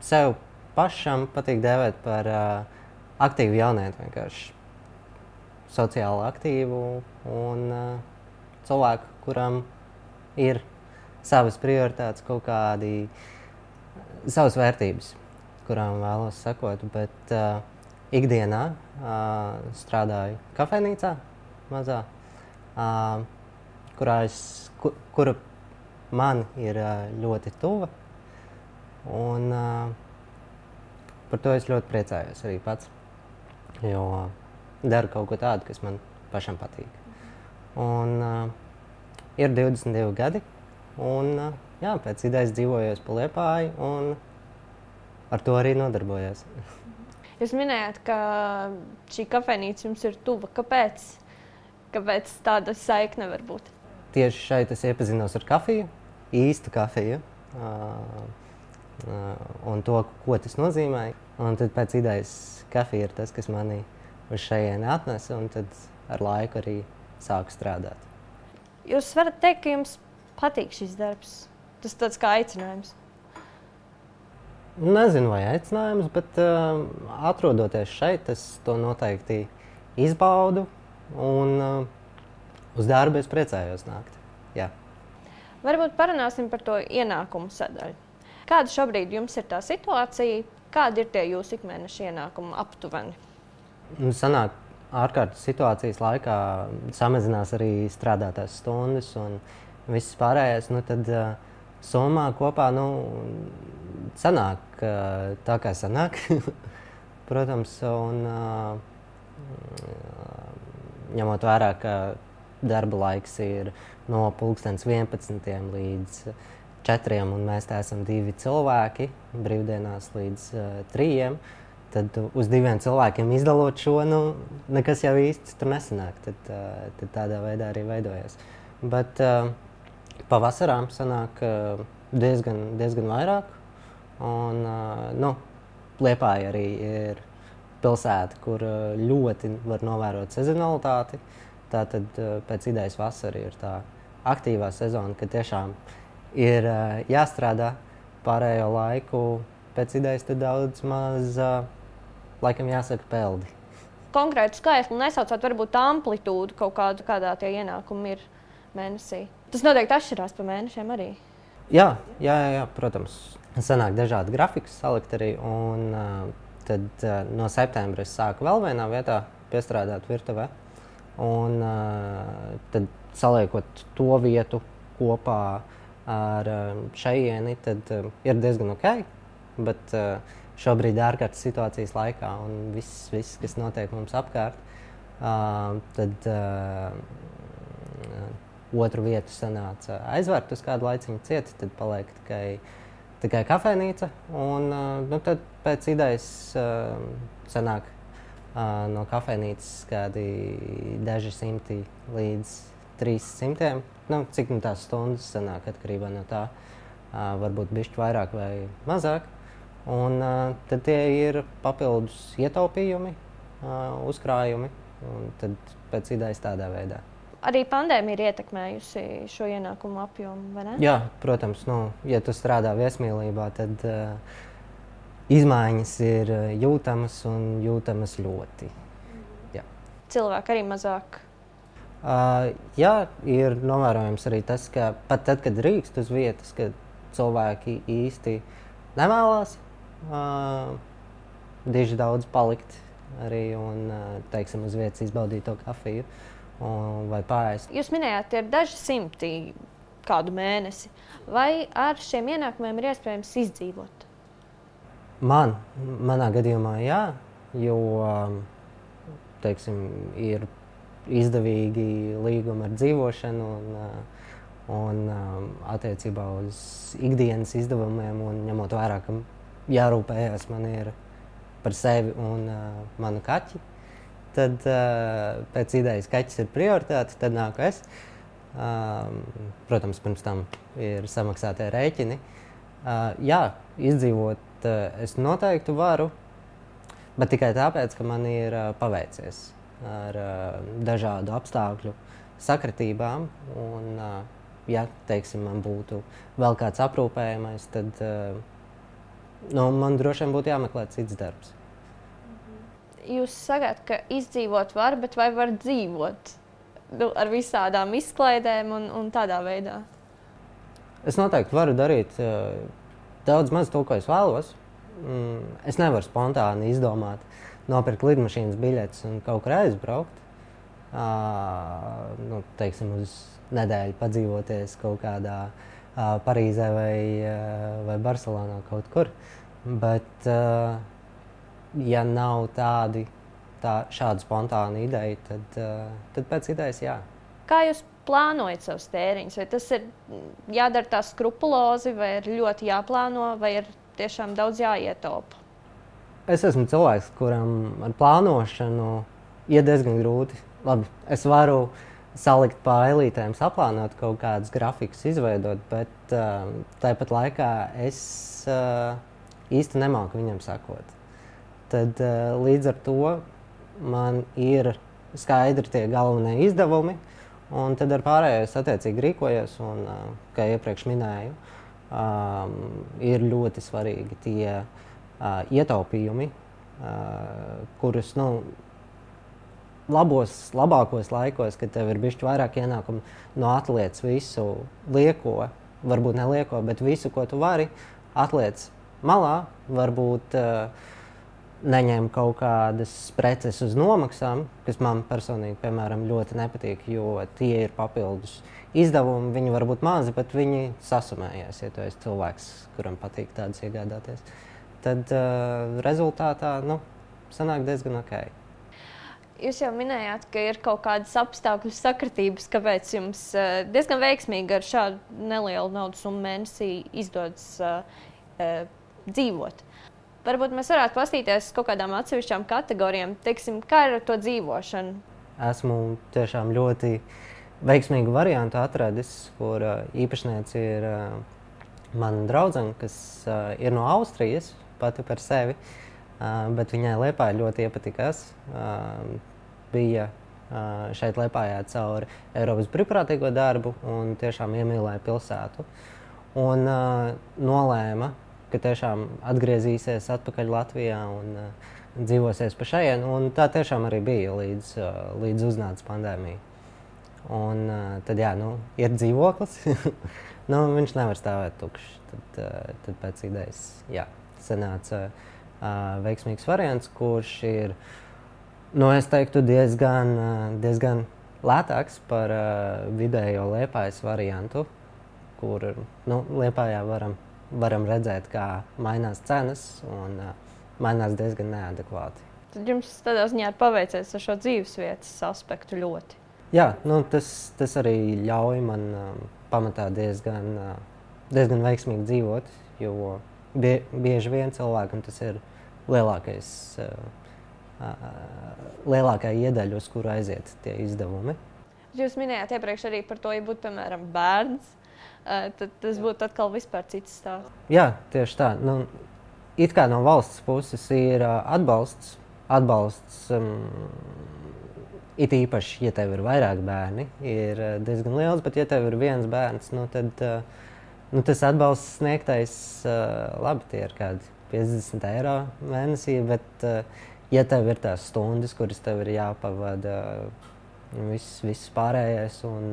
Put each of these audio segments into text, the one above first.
sev pašam patīk dēvēt par aktīvu jaunieti, vienkārši sociāli aktīvu un cilvēku, kuram ir savas prioritātes, kaut kādi savas vērtības, kurām vēlos sekot, bet ikdienā strādāju kafejnīcā mazā, kura man ir ļoti tuva, un par to es ļoti priecājos arī pats, jo daru kaut ko tādu, kas man pašam patīk. Un ir 22 gadi, un jā, pēc idejas dzīvojos pa Liepāju, un ar to arī nodarbojos. Jūs minējāt, ka šī kafejnīca jums ir tuva. Kāpēc tāda saikne var būt? Tieši šeit es iepazinos ar kafiju, īstu kafiju, un to, ko tas nozīmē. Un tad pēc idejas kafija ir tas, kas mani uz šejieni atnesa, un tad ar laiku arī sāku strādāt. Jūs varat teikt, ka jums patīk šis darbs? Tas tāds kā aicinājums? Nezinu, vai aicinājums, bet atrodoties šeit, es to noteikti izbaudu, un uz darbu es priecājos nākt. Jā. Varbūt parunāsim par to ienākumu sadaļu. Kāda šobrīd jums ir tā situācija? Kādi ir tie jūsu ikmēneša ienākumi aptuveni? Sanāk, ārkārtas situācijas laikā samazinās arī strādātās stundas un viss pārējais, tad summā kopā sanāk tā, kā sanāk, protams, un ņemot vērā, ka darba laiks ir no 11 līdz 4, un mēs te esam 2 cilvēki, brīvdienās līdz 3, tad uz 2 cilvēkiem izdalot šo, nekas jau īsti tur nesanāk. Tad tādā veidā arī veidojas. Bet pavasarām sanāk diezgan vairāk. Un Liepāja arī ir pilsēta, kur ļoti var novērot sezonalitāti. Tātad pēc idejas vasara ir tā aktīvā sezona, ka tiešām ir jāstrādā pārējo laiku. Pēc idejas tad daudz maz laikam jāsaka peldi. Konkrētu skaitli nesaucot, varbūt amplitūdu kaut kādu, kādā tie ienākumi ir mēnesī. Tas noteikti atšķirās pa mēnešiem arī. Jā, protams. Sanāk dažādi grafikas salikt arī, un tad no septembra es sāku vēl vienā vietā piestrādāt virtuvē. Un tad saliekot to vietu kopā ar šejieni, tad ir diezgan ok, bet šobrīd ārkārtas situācijas laikā un viss, kas notiek mums apkārt, tad otru vietu sanāca aizvērt uz kādu laiciņu cieti, tad paliek tikai kafejnīca, un tad pēc idejas sanāk no kafejnīcas kādi daži simti līdz 300, cik tās stundas sanāk atkarībā no tā, varbūt bišķi vairāk vai mazāk. Un tad tie ir papildus ietaupījumi, uzkrājumi, un tad pēc idejas tādā veidā. Arī pandēmija ir ietekmējusi šo ienākumu apjomu, vai ne? Jā, protams, ja tu strādā viesmīlībā, tad izmaiņas ir jūtamas un jūtamas ļoti. Jā. Cilvēki arī mazāk? Jā, ir novērojams arī tas, ka pat tad, kad drīkst uz vietas, kad cilvēki īsti nevēlās diži daudz palikt arī un, teiksim, uz vietas izbaudīt to kafiju vai pārēst. Jūs minējāt, ir daži simti kādu mēnesi. Vai ar šiem ienākumiem ir iespējams izdzīvot? Manā gadījumā jā, jo, teiksim, ir izdevīgi līgumi ar dzīvošanu un attiecībā uz ikdienas izdevumiem un ņemot vērā, ka jārūpējās man ir par sevi un manu kaķi, tad pēc idejas kaķis ir prioritāte, tad nāku es. Protams, pirms tam ir samaksātie rēķini. Jā, izdzīvot es noteikti varu, bet tikai tāpēc, ka man ir paveicies ar dažādu apstākļu sakritībām. Un, ja, teiksim, man būtu vēl kāds aprūpējamais, tad Man droši vien būtu jāmeklē cits darbs. Jūs sakāt, ka izdzīvot var, bet vai var dzīvot ar visādām izklaidēm un tādā veidā? Es noteikti varu darīt daudz maz to, ko es vēlos. Es nevaru spontāni izdomāt, nopirkt lidmašīnas biļetes un kaut kur aizbraukt. Teiksim, uz nedēļu padzīvoties kaut kādā Parīzē vai Barcelonā kaut kur. Bet, ja nav šādu spontānu ideju, tad pēc idejas jā. Kā jūs plānojat savus tēriņus? Vai tas ir jādara tā skrupulozi, vai ir ļoti jāplāno, vai ir tiešām daudz jāietaupa? Es esmu cilvēks, kuram ar plānošanu iet diezgan grūti. Labi, es varu salikt pa eilītēm, saplānot kaut kādus grafikus, izveidot, bet tāpat laikā es īsti nemāku viņam sakot. Tad līdz ar to man ir skaidri tie galvenie izdevumi, un tad ar pārējo es attiecīgi rīkojos, un, kā iepriekš minēju, ir ļoti svarīgi tie ietaupījumi, kurus, labākos laikos, kad tev ir bišķi vairāk ienākumu, atliec visu lieko, varbūt nelieko, bet visu, ko tu vari, atliec malā, varbūt neņem kaut kādas preces uz nomaksām, kas man personīgi, piemēram, ļoti nepatīk, jo tie ir papildus izdevumi. Viņi var būt mazi, bet viņi sasumējas, ja tu esi cilvēks, kuram patīk tādus iegādāties. Tad rezultātā sanāk diezgan ok. Jūs jau minējāt, ka ir kaut kādas apstākļu sakritības, kāpēc jums diezgan veiksmīgi ar šādu nelielu naudas summu mēnesī izdodas dzīvot. Varbūt mēs varētu pastīties kaut kādām atsevišķām kategorijām. Teiksim, kā ir ar to dzīvošanu? Esmu tiešām ļoti veiksmīgu variantu atradis, kur īpašniece ir mana draudzene, kas ir no Austrijas, pati par sevi, bet viņai Liepāja ļoti iepatikās. Bija šeit Liepājā caur Eiropas brīvprātīgo darbu un tiešām iemīlēja pilsētu. Un nolēma, ka tiešām atgriezīsies atpakaļ Latvijā un dzīvosies pa šejienu. Un tā tiešām arī bija līdz uznāca pandēmija. Un tad jā, ir dzīvoklis. Viņš nevar stāvēt tukšs. Tad pēc idejas, jā, sanāca veiksmīgs variants, kurš ir, es teiktu, diezgan lētāks par vidējo Liepājas variantu, kur Liepājā varam redzēt, kā mainās cenas un mainās diezgan neadekvāti. Tad jums tādā ziņā ir paveicies ar šo dzīvesvietas aspektu ļoti. Jā, tas arī ļauj man pamatā diezgan veiksmīgi dzīvot, jo bieži vien cilvēkam tas ir lielākā iedaļa, uz kuru aiziet tie izdevumi. Jūs minējāt iepriekš arī par to, ja būtu, piemēram, bērns, tad tas būtu atkal vispār cits stāsts. Jā, tieši tā. It kā no valsts puses ir atbalsts. It īpaši, ja tev ir vairāk bērni, ir diezgan liels, bet ja tev ir viens bērns, tad tas atbalsts sniegtais, labi, tie ir kādi 50 eiro mēnesī, bet ja tev ir tās stundas, kuras tev ir jāpavada viss pārējais un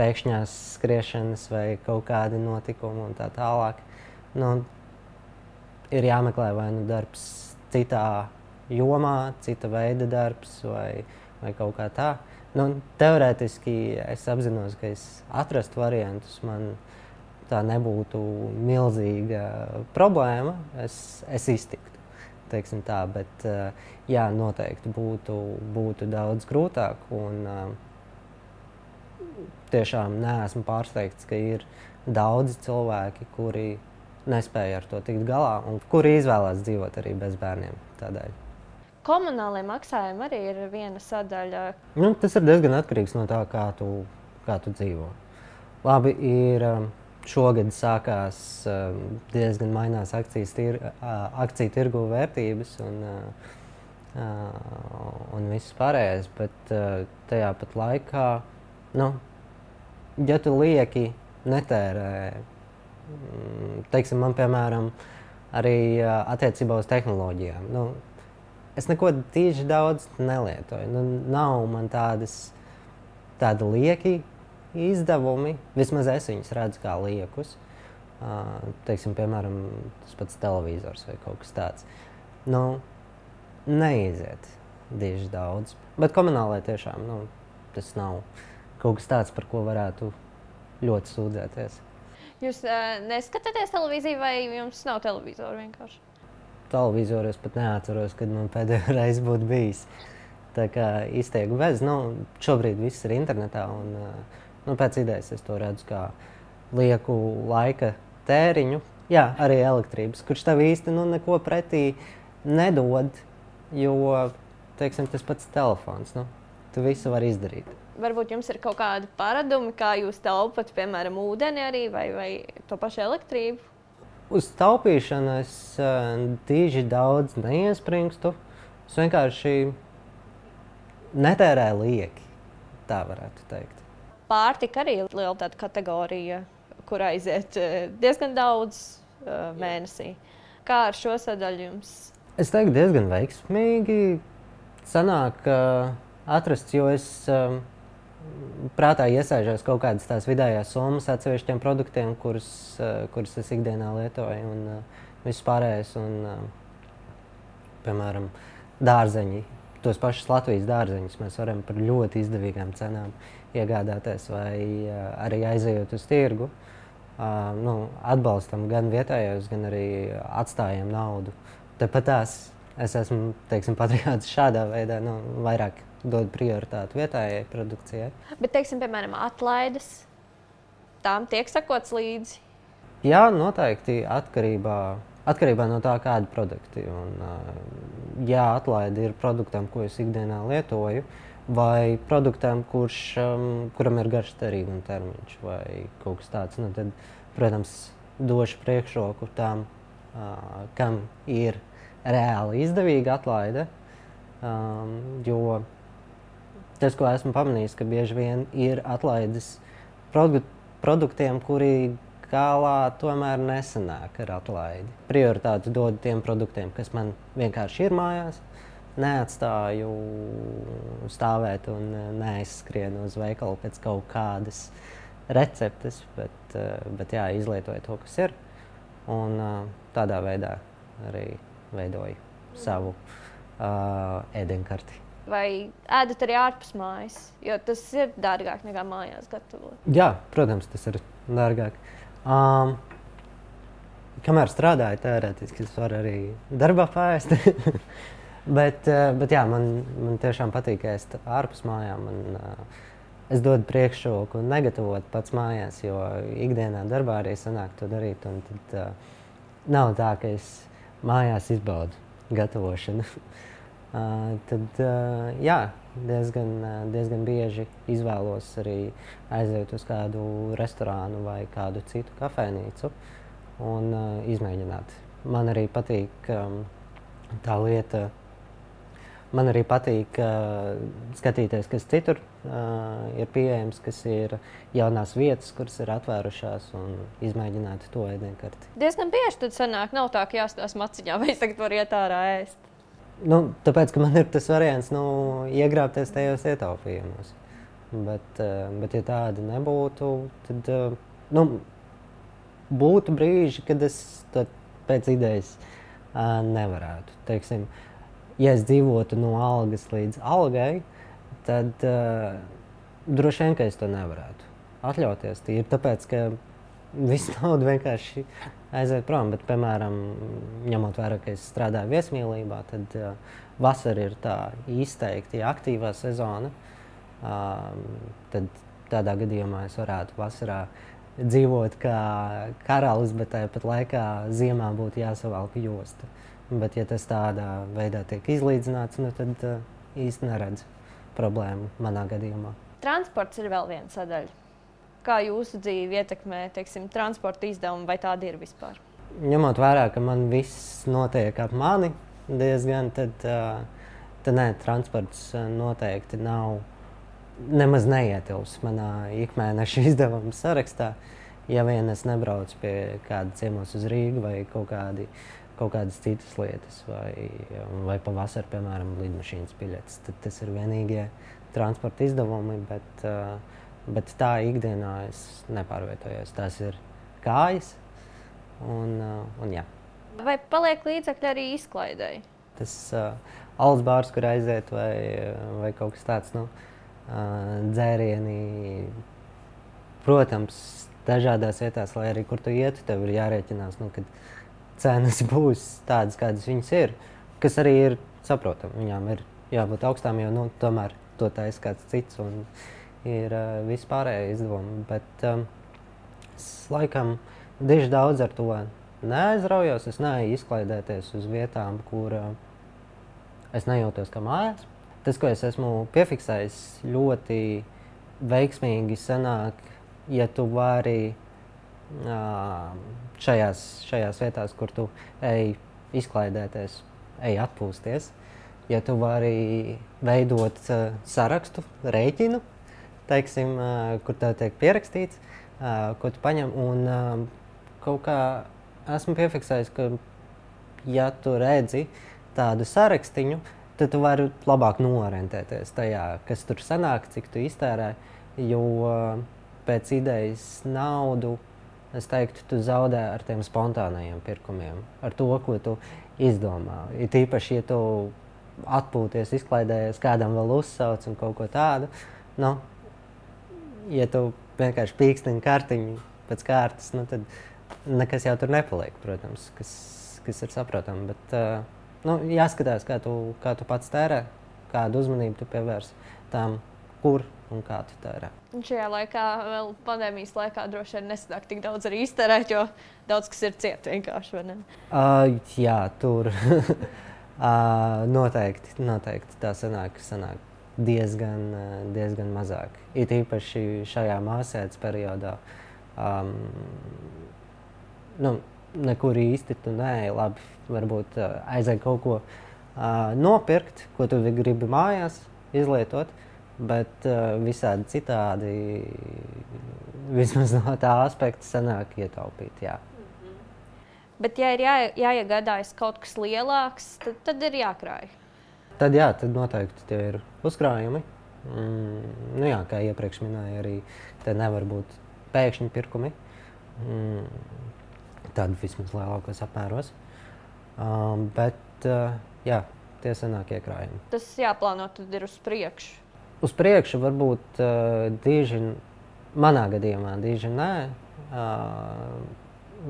pēkšņās skriešanas vai kaut kādi notikumi un tā tālāk, ir jāmeklē vai darbs citā jomā, cita veida darbs vai kaut kā tā. Teorētiski es apzinos, ka es atrastu variantus, man tā nebūtu milzīga problēma, es iztiktu, teiksim tā, bet jā, noteikti būtu daudz grūtāk un tiešām neesmu pārsteigts, ka ir daudzi cilvēki, kuri nespēja ar to tikt galā un kuri izvēlās dzīvot arī bez bērniem tādēļ. Komunālie maksājumi arī ir viena sadaļa. Tas ir diezgan atkarīgs no tā, kā tu dzīvo. Labi, šogad sākās diezgan mainās akciju tirgu vērtības un viss pārējais, bet tajā pat laikā, ja tu lieki netērē, teiksim, man piemēram arī attiecībā uz tehnoloģijām. Nu, es neko tīši daudz nelietoju. Nu, nav man tādi lieki izdevumi, vismaz es viņus redzu kā liekus. Teiksim, piemēram, tas pats televizors vai kaut kas tāds. Nu, neiziet diži daudz. Bet komunālai tiešām tas nav kaut kas tāds, par ko varētu ļoti sūdzēties. Jūs neskatāties televīziju vai jums nav televizoru vienkārši? Televizoru es pat neatceros, kad man pēdējo reizi būtu bijis. Tā kā iztieku bez. Šobrīd viss ir internetā un pēc idejas es to redzu kā lieku laika tēriņu. Jā, arī elektrības, kurš tev īsti neko pretī nedod, jo, teiksim, tas pats telefons, tu visu vari izdarīt. Varbūt jums ir kaut kādi paradumi, kā jūs taupat, piemēram, ūdeni arī vai to pašu elektrību? Uz taupīšanu es tīži daudz neiespringstu. Es vienkārši netērēju lieki, tā varētu teikt. Pārtika arī ir liela tāda kategorija, kur aiziet diezgan daudz mēnesī. Kā ar šo sadaļu jums? Es teiktu, diezgan veiksmīgi sanāk atrasts, jo es prātā iesēžos kaut kādas tās vidējās summas atsevišķiem produktiem, kurus es ikdienā lietoju, un viss pārējais, piemēram, dārzeņi. Tos pašus Latvijas dārzeņus mēs varam par ļoti izdevīgām cenām iegādāties, vai arī aizejot uz tirgu. Atbalstam gan vietējos, gan arī atstājam naudu. Tāpat es esmu, teiksim, patriots šādā veidā, vairāk dod prioritāti vietējai produkcijai. Bet, teiksim, piemēram, atlaides, tām tiek sakots līdzi? Jā, noteikti atkarībā no tā, kādi produkti. Jā, atlaide ir produktam, ko es ikdienā lietoju, vai produktam, kuram ir garš derīguma termiņš vai kaut kas tāds. Tad, protams, došu priekšroku tām, kam ir reāli izdevīga atlaide, jo tas, ko esmu pamanījis, ka bieži vien ir atlaides produktiem, kuri galā tomēr nesanāk ar atlaidi. Prioritāti dod tiem produktiem, kas man vienkārši ir mājās. Neatstāju stāvēt un neaizskrienu uz veikalu pēc kaut kādas receptes, bet jā, izlietoju to, kas ir. Un tādā veidā arī veidoju savu ēdienkarti. Vai ēdat arī ārpus mājas? Jo tas ir dārgāk nekā mājās gatavot. Jā, protams, tas ir dārgāk. Kamēr strādāju, teorētiski es varu arī darbā paēst. bet jā, man tiešām patīk ēst ārpus mājām. Es dodu priekšroku negatavot pats mājās, jo ikdienā darbā arī sanāk to darīt. Un tad nav tā, ka es mājās izbaudu gatavošanu. Tad jā, diezgan bieži izvēlos arī aiziet uz kādu restorānu vai kādu citu kafejnīcu un izmēģināt. Man arī patīk tā lieta, man arī patīk skatīties, kas citur ir pieejams, kas ir jaunās vietas, kuras ir atvērušās un izmēģināt to ēdienkarti. Diezgan bieži tad sanāk, nav tā, ka jāstās maciņā vai es tagad varu iet ārā ēst. Tāpēc, ka man ir tas variants iegrābties tajos ietaupījumos. Bet ja tāda nebūtu, tad būtu brīži, kad es to pēc idejas nevarētu. Teiksim, ja es dzīvotu no algas līdz algai, tad droši vien, ka es to nevarētu atļauties. Tīri tāpēc, ka visu naudu vienkārši aiziet prom, bet, piemēram, ņemot vērā, ka es strādāju viesmīlībā, tad vasara ir tā izteikti aktīvā sezona. Tad tādā gadījumā es varētu vasarā dzīvot kā karalis, bet tāpat laikā ziemā būtu jāsavalk josta. Bet, ja tas tādā veidā tiek izlīdzināts, tad īsti neredzu problēmu manā gadījumā. Transports ir vēl viena sadaļa. Kā jūsu dzīvi ietekmē, teiksim, transporta izdevumi, vai tādi ir vispār? Ņemot vērā, ka man viss notiek ap mani diezgan, tad nē, transports noteikti nav nemaz neietilps manā ikmēneša izdevuma sarakstā, Ja vien es nebraucu pie kāda ciemos uz Rīgu vai kaut kādas citas lietas, vai pavasarī, piemēram, lidmašīnas biļetes, tad tas ir vienīgie transporta izdevumi, bet tā ikdienā es nepārvietojos. Tās ir kājas un jā. Vai paliek līdzekļi arī izklaidēji? Tas alus bārs, kur aiziet, vai kaut kas tāds, dzērieni, protams, dažādās vietās, lai arī kur tu ietu, tev ir jārēķinās, kad cenas būs tādas, kādas viņas ir, kas arī ir saprotami. Viņām ir jābūt augstām, jo tomēr to taisa kāds cits un ir vispārējie izdevumi. Bet es laikam diži daudz ar to neaizraujos. Es neeju izklaidēties uz vietām, kur es nejūtos kā mājās. Tas, ko es esmu piefiksējis, ļoti veiksmīgi sanāk, ja tu vari šajās vietās, kur tu ej izklaidēties, ej atpūsties, ja tu vari veidot sarakstu, rēķinu, teiksim, kur tev tiek pierakstīts, ko tu paņem, un kaut kā esmu piefiksējis, ka ja tu redzi tādu sarakstiņu, tad tu vari labāk noorientēties tajā, kas tur sanāk, cik tu iztērē, jo pēc idejas naudu, es teiktu, tu zaudē ar tiem spontānajiem pirkumiem, ar to, ko tu izdomā. Ir tīpaši, ja tu atpūties, izklaidējies, kādam vēl uzsauc un kaut ko tādu, ja tu vienkārši pīkstini kartiņu pēc kārtas, tad nekas jau tur nepaliek, protams, kas ir saprotami, bet jāskatās, kā tu pats tērē, kādu uzmanību tu pievērs tām, kur un kā tu tērē. Un šajā laikā, vēl pandēmijas laikā, droši vien nesanāk tik daudz arī iztērēt, jo daudz kas ir ciet vienkārši, vai ne? Jā, tur noteikti tā sanāk diezgan mazāk. It īpaši šajā māsētas periodā. Nekur īsti tu neej, labi, varbūt aizēj kaut ko nopirkt, ko tu gribi mājās izlietot, bet visādi citādi, vismaz no tā aspekta, sanāk ietaupīt, jā. Bet ja ir jāiegādājas kaut kas lielāks, tad ir jākrāj. Tad noteikti tie ir uzkrājumi. Kā iepriekš minēju, arī te nevar būt pēkšņi pirkumi. Tādi vismaz lielākos apmēros. Bet tie sanāk iekrājumi. Tas jāplāno tad ir uz priekšu. Uz priekšu varbūt dīži, manā gadījumā dīži nē,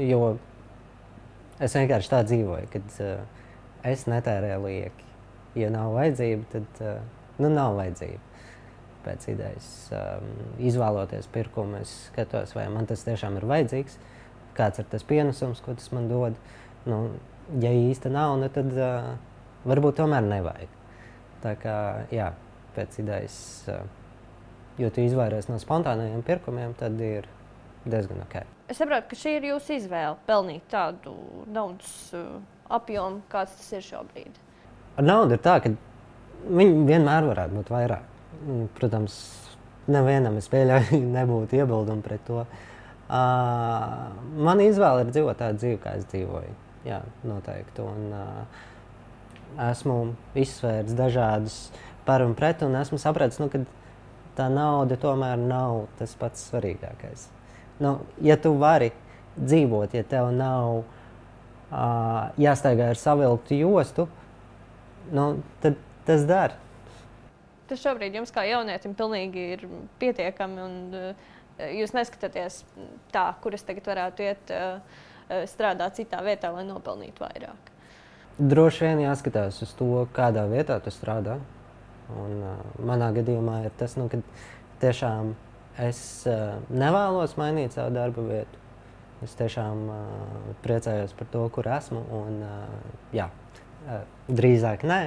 jo es vienkārši tā dzīvoju, kad es netērēju lieki. Ja nav vajadzība, tad nav vajadzība. Pēc idejas izvēloties pirkumu, es skatos, vai man tas tiešām ir vajadzīgs, kāds ir tas pienesums, ko tas man dod. Ja īsti nav, tad varbūt tomēr nevajag. Tā kā, pēc idejas, jo tu izvairies no spontānajiem pirkumiem, tad ir diezgan ok. Es saprotu, ka šī ir jūsu izvēle pelnīt tādu naudas apjomu, kāds tas ir šobrīd. Ar naudu ir tā, ka viņi vienmēr varētu būt vairāk. Protams, nevienam es pieļauju nebūtu iebildumu pret to. Man izvēle ir dzīvot tādu dzīvi, kā es dzīvoju. Jā, noteikti. Un esmu izsvērs dažādus par un pret, un esmu sapratis, ka tā nauda tomēr nav tas pats svarīgākais. Ja tu vari dzīvot, ja tev nav jāstaigā ar savilktu jostu, tad tas dara. Tas šobrīd jums kā jaunietim pilnīgi ir pietiekami, un jūs neskatāties tā, kur es tagad varētu iet strādāt citā vietā, lai nopelnītu vairāk. Droši vien jāskatās uz to, kādā vietā tu strādā. Un, manā gadījumā ir tas, ka tiešām es nevēlos mainīt savu darba vietu. Es tiešām priecājos par to, kur esmu. Un, drīzāk nē.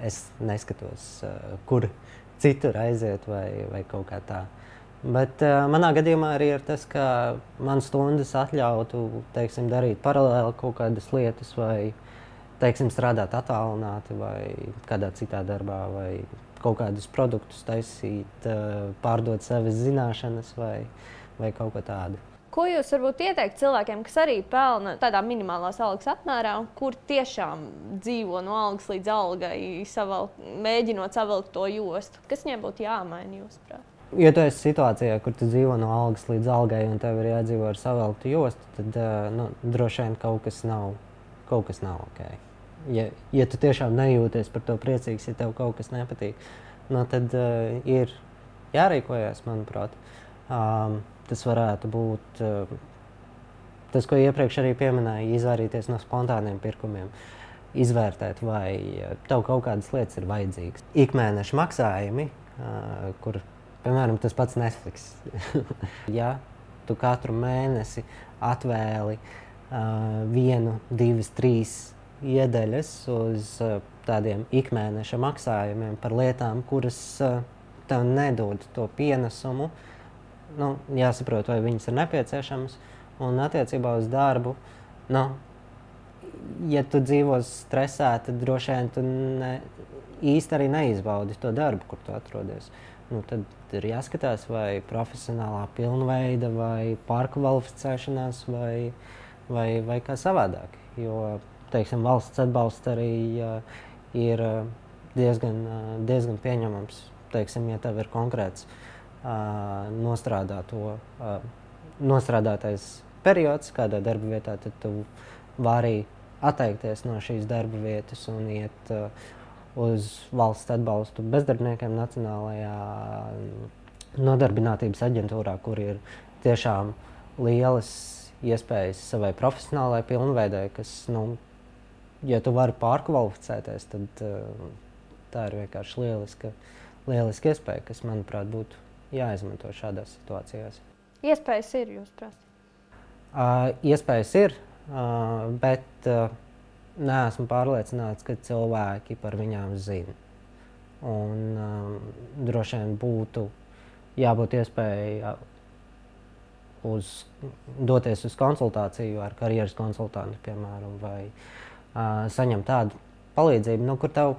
Es neskatos, kur citur aiziet vai kaut kā tā. Bet manā gadījumā arī ir tas, ka man stundas atļautu, teiksim, darīt paralēli kaut kādas lietas vai, teiksim, strādāt attālināti vai kādā citā darbā vai kaut kādus produktus taisīt, pārdot savas zināšanas vai vai kaut ko tādu. Ko jūs varbūt ieteikt cilvēkiem, kas arī pelna tādā minimālās algas apmērā, un kur tiešām dzīvo no algas līdz algai, mēģinot savilkt to jostu? Kas viņiem būtu jāmaina, jūsuprāt? Ja tu esi situācijā, kur tu dzīvo no algas līdz algai un tev ir jādzīvo ar savilktu jostu, tad droši vien kaut kas nav ok. Ja tu tiešām nejūties par to priecīgs, ja tev kaut kas nepatīk, tad ir jārīkojas, manuprāt. Tas varētu būt tas, ko iepriekš arī pieminēju, izvairīties no spontāniem pirkumiem, izvērtēt, vai tev kaut kādas lietas ir vajadzīgas. Ikmēneša maksājumi, kur, piemēram, tas pats Netflix. Ja tu katru mēnesi atvēli 1, 2, 3 iedaļas uz tādiem ikmēneša maksājumiem par lietām, kuras tev nedod to pienesumu, jāsaprot, vai viņas ir nepieciešamas. Un attiecībā uz darbu, ja tu dzīvo stresā, tad droši vien tu īsti arī neizbaudi to darbu, kur tu atrodies. Tad ir jāskatās, vai profesionālā pilnveida, vai pārkvalificēšanās, vai kā savādāk. Jo, teiksim, valsts atbalsts arī ir diezgan pieņemams. Teiksim, ja tev ir konkrēts nostrādātais periods kādā darba vietā, tad tu vari atteikties no šīs darba vietas un iet uz valsts atbalstu bezdarbniekiem Nacionālajā nodarbinātības aģentūrā, kur ir tiešām lielas iespējas savai profesionālajai pilnveidai, kas, ja tu vari pārkvalificēties, tad tā ir vienkārši lieliska iespēja, kas, manuprāt, būtu jāizmanto šādās situācijās. Iespējas ir, jūsuprāt? Iespējas ir, bet neesmu pārliecināts, ka cilvēki par viņām zina. Un droši vien būtu jābūt iespēja doties uz konsultāciju ar karjeras konsultantu, piemēram, vai saņemt tādu palīdzību, kur tev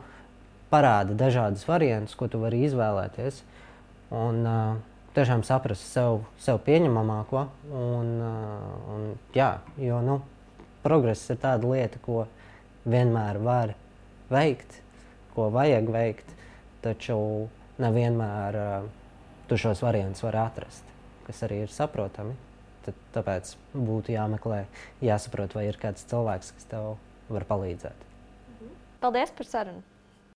parāda dažādas variantus, ko tu vari izvēlēties. Un tiešām saprast sev pieņemamāko. Jo progress ir tāda lieta, ko vienmēr var veikt, ko vajag veikt, taču nevienmēr tu šos variantus var atrast, kas arī ir saprotami. Tāpēc būtu jāmeklē, jāsaprot, vai ir kāds cilvēks, kas tev var palīdzēt. Paldies par sarunu!